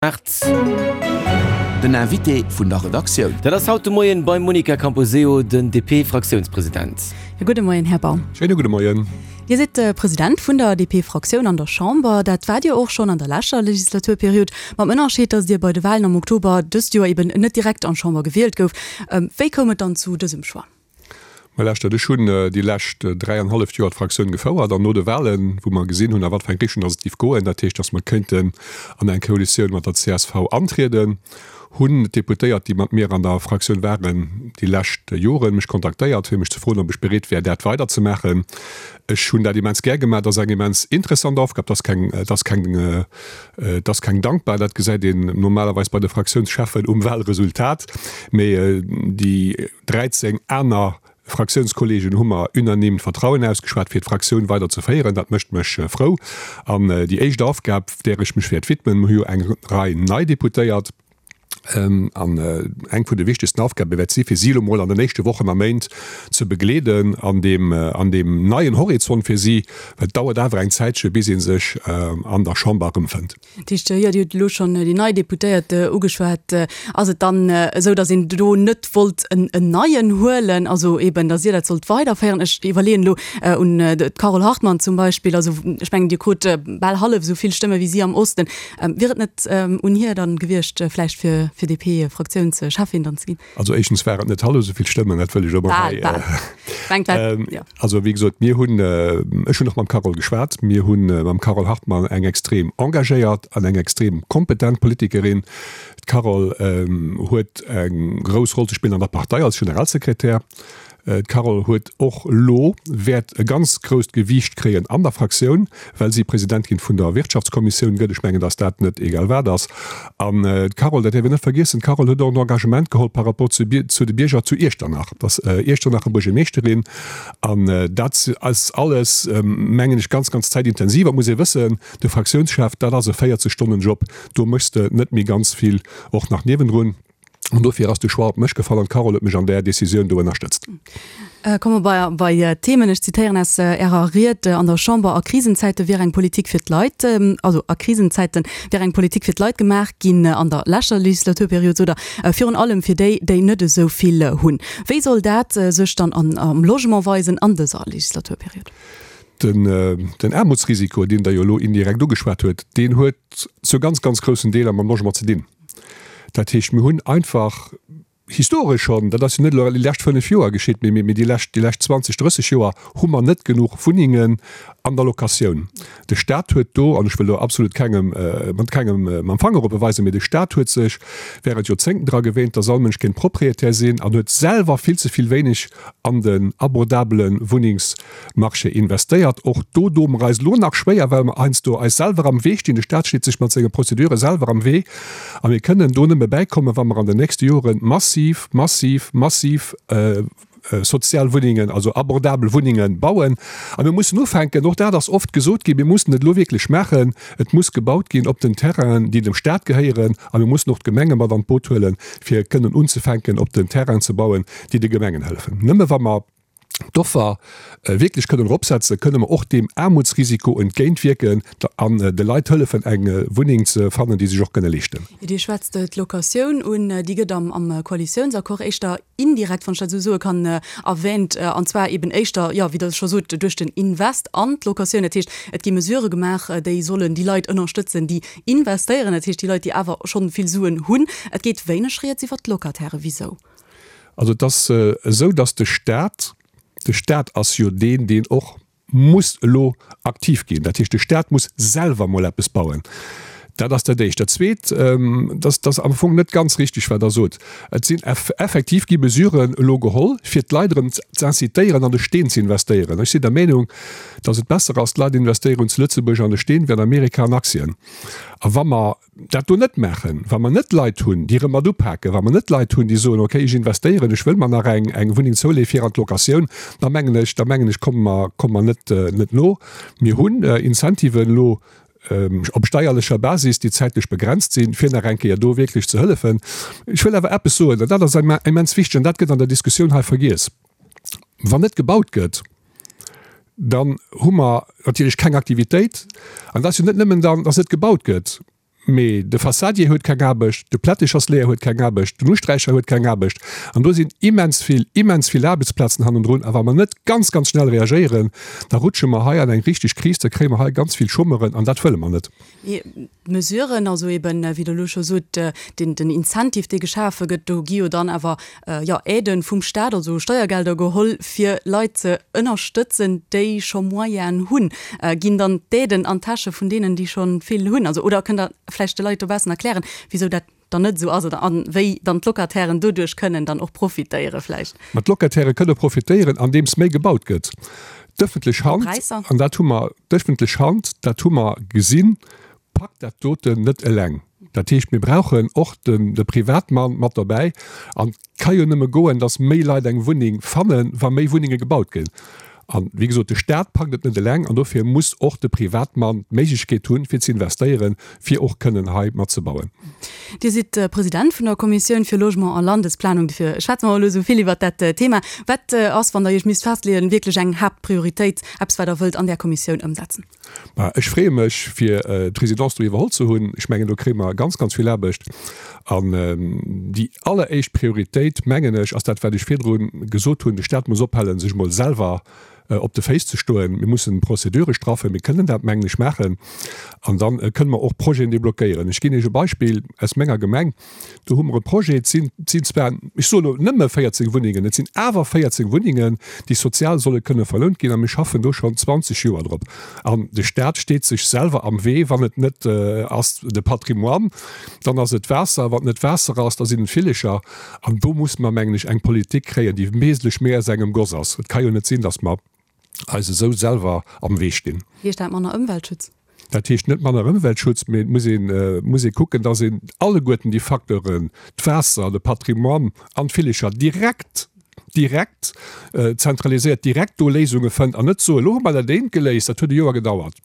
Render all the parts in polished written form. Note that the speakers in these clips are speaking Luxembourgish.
8. Den Invité vun der Redaktioun. Dat ass haut de Moien beim Monica Camposeo, den DP-Fraktiounspresident. Jo, gudde Moien, Här Baum. Schéine gudde Moien. Dir sidd President vun der DP-Fraktioun an der Chamber. Dat waart Dir och schonn an der leschter Legislaturperiod, mam Ënnerscheed, datt Dir bei de Walen am Oktober dëst Joer eben net direkt an d'Chamber gewielt gouft. Wéi koum et dann zu dësem Choix? Mä lauschtert, ech hunn déi lescht dräianhalleft Joer d'Fraktioun gefouert an no de Wahlen, wou mer gesinn hunn, a wat fir eng Richtung datt et géif goen, dat heescht, datt mer kéinten an eng Koalitioun mat der csv antrieden, hunn d'Deputéiert, déi mat mir an der Fraktioun waren déi lescht Joren, mech kontaktéiert, fir mech ze froen, ob ech bereet wär, dat weiderzemaachen. Ech hunn dat immens gär gemaach. Et ass eng immens interessant Aufgab. Et ass keng, et ass keng, et ass keng dankbar, dat gesäit een normalerweis bei de Fraktiounscheffen um Wahlresultat, mee déi 13 aner Fraktiounskollegen hu mer unanime d'Vertrauen ausgeschwat, fir d'Fraktioun weider ze féieren. Dat mécht mech frou. An déi éischt Aufgab, där ech mech wäert widmen, mer hu jo eng Rei nei Deputéiert, an eng vun de wichtegsten Aufgabe wäert si fir si elo mol an den éischte Wochen a Méint ze begleeden an deem, an deem neien Horizont fir si, well et dauert awer eng Zäitche bis ee sech an der Chamber erëmfënnt. Dat heescht, jo, Dir hutt elo schonn déi nei Deputéiert ugeschwat. Ass et dann esou, datt een do net wollt en neien huelen, also eeben, datt Dir dat sollt weiderféieren? Ech iwwerleeën elo un d'Carole Hartmann zum Beispill. Also ech mengen, Dir krut bal hallef esou vill Stëmme wéi si am Osten. Wier et net un hir dann gewiescht, vläicht fir fir DP-Fraktiounscheffin dann ze ginn? Also éischtens war et net hallef esou vill Stëmmen, dat wëll ech och mol hei. Bal, bal. Mengt jo. Also wéi gesot, mir hunn, ech hunn och mam Carole geschwat, mir hu mam Carole Hartmann eng extrem engagéiert an eng extrem kompetent Politikerin. D'Carole huet eng grouss Roll ze spillen an der Partei als Generalsekretär. D'Carole huet och elo, wäert e ganz grousst Gewiicht kréien an der Fraktioun, well si Presidentin vun der Wirtschaftskommissioun gëtt. Ech mengen, datt dat net egal wat ass. An d'Carole, dat däerf een net vergiessen, d'Carole huet och en Engagement geholl par rapport zu zu de Bierger zu Iechternach. Et ass Iechternacher Buergermeeschterin. An dat ass alles, mengen ech, ganz, ganz zäitintensiv. Et muss ee wëssen, de Fraktiounschef, dat ass e 40 Stonnen Job. Do méchs de net méi ganz vill och nach niewendrun. An dofir ass de Choix op mech gefall an d'Carole huet mech an där Decisioun do ënnerstëtzt. Komme mer bei d'Themen. Ech zitéieren aus Ärer Ried an der Chamber, A Krisenzäite wier eng Politik fir d'Leit, also a Krisenzäite wier eng Politik fir d'Leit gemaach ginn an der leschter Legislaturperiod, sot Der, virun allem fir déi, déi net esou vill hunn. Wéi soll dat sech dann am Logement weisen an dëser Legislaturperiod? Den Aarmutsrisiko, deen Der jo elo indirekt ugeschwat huet, deen huet zu ganz, ganz groussen Deeler mam Logement ze dinn. Dat heescht, mir hunn einfach historesch schonn, dat ass jo net elo déi lescht 5 Joer geschitt, mee déi lescht, déi lescht 20, 30 Joer hu mer net genuch Wunnengen an der Locatioun. De Stat huet do, an ech wëll do absolut kengem, mat kengem mam Fanger op e weisen, mee de Stat huet sech während Joerzéngten dra gewéint, dass all Mënsch kéint Propriétaire sinn an huet selwer vill ze vill wéineg an den abordabele Wunnings, Marché investéiert. Och do doe mer eis elo nach schwéier, well mer heiansdo eis selwer am Wee stinn. De Stat steet sech mat senge Prozedure selwer am Wee a mir kënnen do nëmme bäikommen, wa mer an den nächste Jore massiv, massiv, massiv sozial Wunnengen, also abordabel Wunnengen bauen. A mir mussen ufänken, och dat ass oft gesot ginn, mir mussen et elo wierklech maachen, et muss gebaut ginn op den Terrainen, déi dem Stat gehéieren a mir mussen och d'Gemenge mat an d'Boot huelen, fir kënnen unzefänken op den Terrainen ze bauen, déi de Gemengen hëllefen. Nëmme wa mer d'Offer wierklech kënnen eropsetzen, kënne mer och deem Aarmutsrisiko entgéintwierken an de Leit hëllefen, eng Wunneng ze fannen, déi se sech och kënne leeschten. Dir schwätzt d'Locatioun un. Déi gëtt am Koalitiounsaccord éischter indirekt, wann ech dat esou soe kann, erwähnt, an zwar eben éischter, jo, wéi Der scho sot, duerch den Invest an d'Locatioun. Dat heescht, et gi Mesurë gemaach, déi sollen déi Leit ënnerstëtzen, déi investéieren, dat heescht déi Leit, déi awer schonn vill Suen hunn. Et geet wéineg rieds iwwert d'Locatairen. Wisou? Also et ass esou, datt de Stat, de Stat ass jo deen, deen och muss elo aktiv ginn, dat heescht de Stat muss selwer emol eppes bauen. Dat ass dat Éischt. Dat Zweet, dat ass am Fong net ganz richtig, wat Der sot. Et sinn effektiv gi Mesuren elo geholl, fir d'Leit erëm z'incitéieren, an de Steen ze investéieren. Ech sinn der Meenung, datt et besser ass, d'Leit investéieren zu Lëtzebuerg an de Steen wéi an Amerika an Aktien. A wa mer dat do net maachen, wa mer net Leit hunn, déi erëm mat upaken, wa mer net Leit hunn, déi soen, okay, ech investéieren, ech wëll mer nach eng, eng Wunneng zouleeën fir an d'Locatioun, da mengen ech, da mengen ech, komme mer, komme mer net, net no. Mir hunn Incentiven elo op steierlecher Basis, déi zäitlech begrenzt sinn, fir nach eng Kéier do wierklech ze hëllefen. Ech wëll awer eppes soen, an dat ass immens wichteg, an dat gëtt an der Diskussioun hei vergiess, Wann net gebaut gëtt, dann hu mer natierlech keng Aktivitéit. An dat ass jo net nëmmen dann, dass net gebaut gëtt. Mee de Fassadier huet keng Aarbecht, de Plättechersleeër huet keng Aarbecht, den Usträicher huet keng Aarbecht. An do sinn immens vill, immens vill Aarbechtsplazen hannendrun. A wa mer net ganz, ganz schnell reagéieren, da rutsche mer hei an eng richteg Kris, da kréie mer hei ganz vill Chômeuren an dat wëlle mer net. Mee d'Mesuren, also eben, wéi Der elo scho sot, den, den Incentive, dee geschafe gëtt, do gi jo dann awer, jo, Aiden vum Staat, also Steiergelder geholl, fir Leit ze ënnerstëtzen, déi scho Moyenen hunn. Ginn dann d'Aiden an d'Täsche vun deenen, déi scho vill hunn? Also, oder kënnt Der vläicht de Leit dobaussen erklären, wisou dat dann net esou ass oder a wéi dann d'Locatairen doduerch kënnen dann och profitéiere vläicht? Ma d'Locataire kënne profitéieren, andeems méi gebaut gëtt. D'ëffentlech Hand, an dat hu mer, d'ëffentlech Hand, dat hu mer gesinn, packt dat doten net eleng. Dat heescht, mir brauchen och de Privatmann mat dobäi. An et ka jo nëmme goen, datt méi Leit eng Wunneng fannen, wa méi Wunnenge gebaut ginn. An, wéi gesot, de Staat packt et net eleng an dofir muss och de Privatmann d'Méiglechkeet hunn, fir ze investéieren, fir och kënnen hei matzebauen. Dir sidd President vun der Kommissioun fir Logement a Landesplanung, dofir schwätze mer elo esou vill iwwert dat Thema. Wat ass, wann Der Iech misst festleeën, wierklech eng Haaptprioritéit, eppes wat Der wëllt an där Kommissioun ëmsetzen? Ma ech freeë mech, fir d'Presidence do iwwerholl ze hunn. Ech mengen, do kréie mer ganz, ganz vill Aarbecht. An déi alleréischt Prioritéit, mengen ech, ass dat, wat ech virdru gesot hunn, De Staat muss ophalen, sech emol selwer op de Féiss ze stoen. Mir mussen d'Procedure straffen. Mir kënnen dat, mengen ech, maachen. An da kënnen mer och Projeten deblockéieren. Ech ginn Iech e Beispill aus menger Gemeng. Do hu mer e Projet, et sinn, et sinn zwar, ech soen elo nëmme 14 Wunnengen, et sinn awer 14 Wunnengen, déi sozial solle kënne verlount ginn a mir schaffen do schonn 20 Joer drop. An de Stat steet sech selwer am Wee, wann et net ass de Patrimoine, dann ass et d'Waasser, wann et net d'Waasser ass, da sinn et d'Villecher. An do musse mer, mengen ech, eng Politik kréien, déi wesentlech méi aus engem Goss ass. Et ka jo net sinn, datt mer eis esou selwer am Wee stinn. Heescht dat manner Ëmweltschutz? Dat heescht net manner Ëmweltschutz, mee et muss een, muss ee kucken, dass een alleguerten déi Facteuren, d'Waasser, de Patrimoine an d'Villecher direkt, direkt zentraliséiert, direkt do Léisunge fënnt an net soen, elo hu mer dat eent geléist, dat huet e Joer gedauert,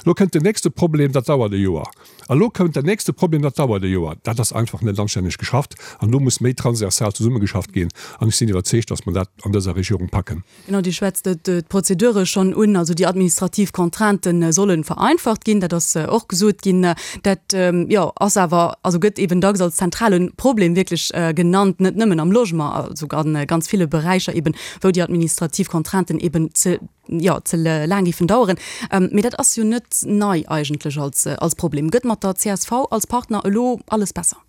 elo kënnt den nächste Problem, dat dauert e Joer, a lo kënnt den nächste Problem, dat dauert e Joer. Dat ass einfach net anstänneg geschafft an do muss méi transversal zesummegeschafft ginn an ech sinn iwwerzeegt, dass mer dat an dëser Regierung packen. Genau, Dir schwätzt d'Prozedure schonn un, also déi administrativ Contraintë solle vereinfacht ginn, dat ass och gesot ginn. Dat, jo, ass awer, also gëtt eeben dacks als zentrale Problem wierklech genannt, net nëmmen am Logement, also a ganz ville Beräicher eeben, wou déi administrativ Contrainten eeben ze, jo, ze laang géifen daueren. Mee dat ass jo net nei eigentlech als, als Problem. Gëtt mat der csv als Partner elo alles besser?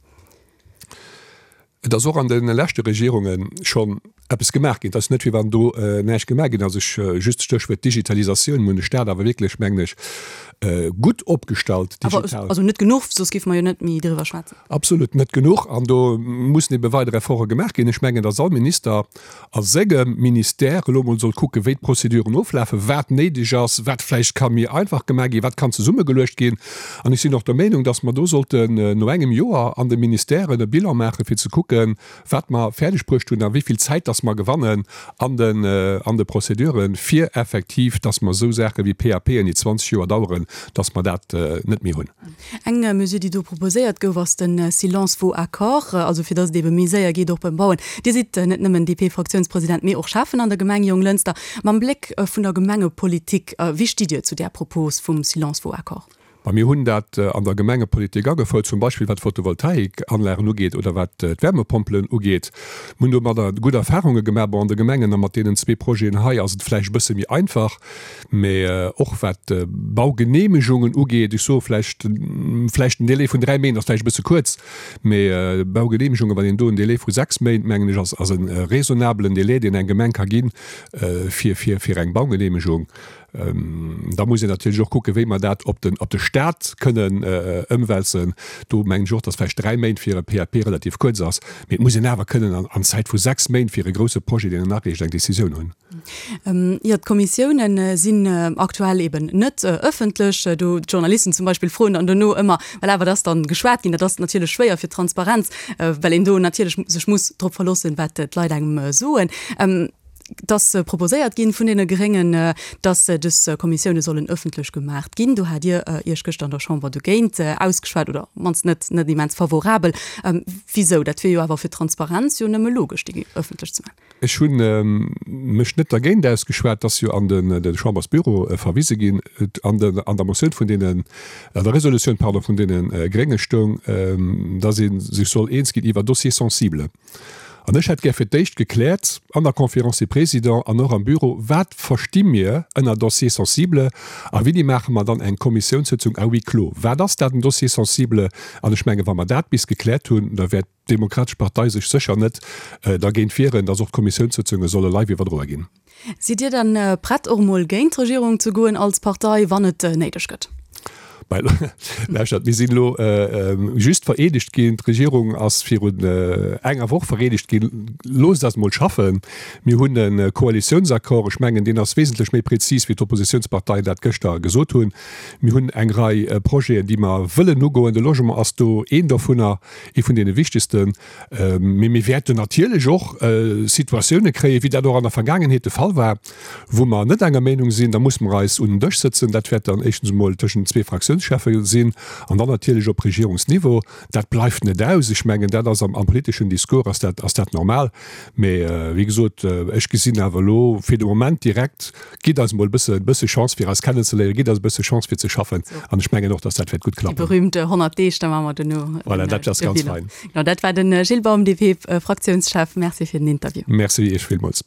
Et ass och an de leschte Regierunge schonn eppes gemaach ginn. Et ass net, wéi wann do näischt gemaach ginn ass. Ech, just d'Stéchwuert Digitalisatioun, mir hunn de Staat awer wierklech, mengen ech, gutt opgestallt digital. Also net genuch, soss géife mer jo net méi driwwer schwätzen. Absolut net genuch. An do mussen ebe weider Efforte gemaach ginn. Ech mengen, datt all Minister a sengem Ministère elo emol soll kucken, wéi d'Prozeduren oflafen, wat néideg ass, wat vläicht ka méi einfach gemaach ginn, wat kann zesummegeluecht ginn. An ech sinn och der Meenung, dass mer do sollten no engem Joer an de Ministèren e Bilan maachen, fir ze kucken, wat mer fäerdeg bruecht hunn a wéi vill Zäit dass mer gewannen an den, an de Prozeduren, fir effektiv, dass mer esou Saache wéi PAPen, déi 20 Joer daueren, dass mer dat net méi hunn. Eng Mesure, déi do proposéiert gouf, ass de Silence vaut accord, also fir datt et ebe méi séier geet och beim Bauen. Dir sidd net nëmmen DP-Fraktiounspresident, mee och Schäffen an der Gemeng Jonglënster. Mam Bléck vun der Gemengepolitik, wéi stitt Dir zu där Propos vum Silence vaut accord? Ma mir hunn dat an der Gemengepolitik agefouert, zum Beispill wat d'Photovoltaikanlagen ugeet oder wat d'Wärmepompelen ugeet. Mir hunn domadder gutt Erfarunge gemaach. Bon, an de Gemengen a mat deenen zwee Projeten hei ass et vläicht e bësse méi einfach. Mee och wat d'Baugeneemegungen ugeet, ech soe vläicht, vläicht en Délai vun dräi Méint ass vläicht e bësse kuerz, mee Baugeneemegungen, wann een do en Délai vu sechs Méint, mengen ech, ass, ass e raisonnabelen Délai, deen eng Gemeng ka ginn, fir, fir, fir eng Baugeneemegung. Da muss een natierlech och kucken, wéi mer dat op den, op de Stat kënnen ëmwälzen. Do mengen ech och, dass vläicht dräi Méint fir e PAP relativ kuerz ass, mee et muss een awer kënnen an, an Zäit vu sechs Méint fir e grouse Projet, deen een areecht, eng Décisioun hunn. Jo, d'Kommissiounen sinn aktuell eben net ëffentlech. Do d'Journalisten zum Beispill froen dann dono ëmmer, voilà, wat ass dann geschwat ginn? Dat ass natierlech schwéier fir d'Transparenz, well een do natierlech sech muss drop verloossen, wat d'Leit engem soen. Et ass proposéiert ginn vun deene Gréngen, dass dës Kommissioune sollen ëffentlech gemaacht ginn. Do hat Dir Iech gëschter an der Chamber dogéint ausgeschwat, oder op d'mannst net net immens favorabel. Wisou? Dat wier jo awer fir d'Transparenz jo nëmme logesch, déi ëffentlech ze maachen. Ech hu mech net dergéint ausgeschwat, et ass jo an de Chambersbüro verwise ginn. An der Motioun vun deenen, an der Resolutioun, pardon, vun deene Grénge stoung, datt ee sech soll eens ginn iwwer Dossiers sensibles. An ech hätt gär fir d'éischt gekläert an der Conférence des Présidents an och am Büro, Wat versti mir ënner Dossiers sensibles a wéini maache mer dann eng Kommissiounssëtzung à huis clos? Wat ass dat, en Dossier sensible? An ech menge wa mer dat bis gekläert hunn, da wäert d'Demokratesch Partei sech sécher net dergéint wieren, datt och d'Kommissiounssëtzunge solle live iwwerdroe ginn. Sidd Dir dann prett och emol géint d'Regierung ze goen als Partei, wann et néideg gëtt? Lauschtert, mir sinn elo just vereedegt ginn. D'Regierung ass virun enger Woch vereedegt ginn. Loosst eis emol schaffen. Mir hunn e Koalitiounsaccord. Ech mengen, deen ass wesentlech méi prezis, wéi d'Oppositiounsparteien dat gëschter gesot hunn. Mir hunn eng Rei Projeten, déi mer wëllen ugoen. De Logement ass do een dovunner, ee vun deene wichtegsten. Mee mir wäerten natierlech och Situatioune kréien, wéi dat och an der Vergaangenheet de Fall war, wou mer net enger Meenung sinn. Da musse mer eis un den Dësch sëtzen. Dat wäert dann éischtens emol tëschent den zwee Fraktiounscheffe sinn an dann natierlech op Regierungsniveau. Dat bleift net aus. Ech mengen, dat ass am politeschen Discours ass dat, ass dat normal. Mee wéi gesot, ech gesinn awer elo fir de Moment direkt, Gitt eis emol e bësse, bësse Chance fir eis kennenzeléieren, gitt eis e bësse Chance fir ze schaffen an ech mengen och, dass dat wäert gutt klappen. Déi berühmte 100 Deeg, da maache mer duerno den Voilà, dat ass ganz fein. Genau, dat war de Gilles Baum, DP-Fraktiounschef. Merci fir den Interview. Merci Iech villmools.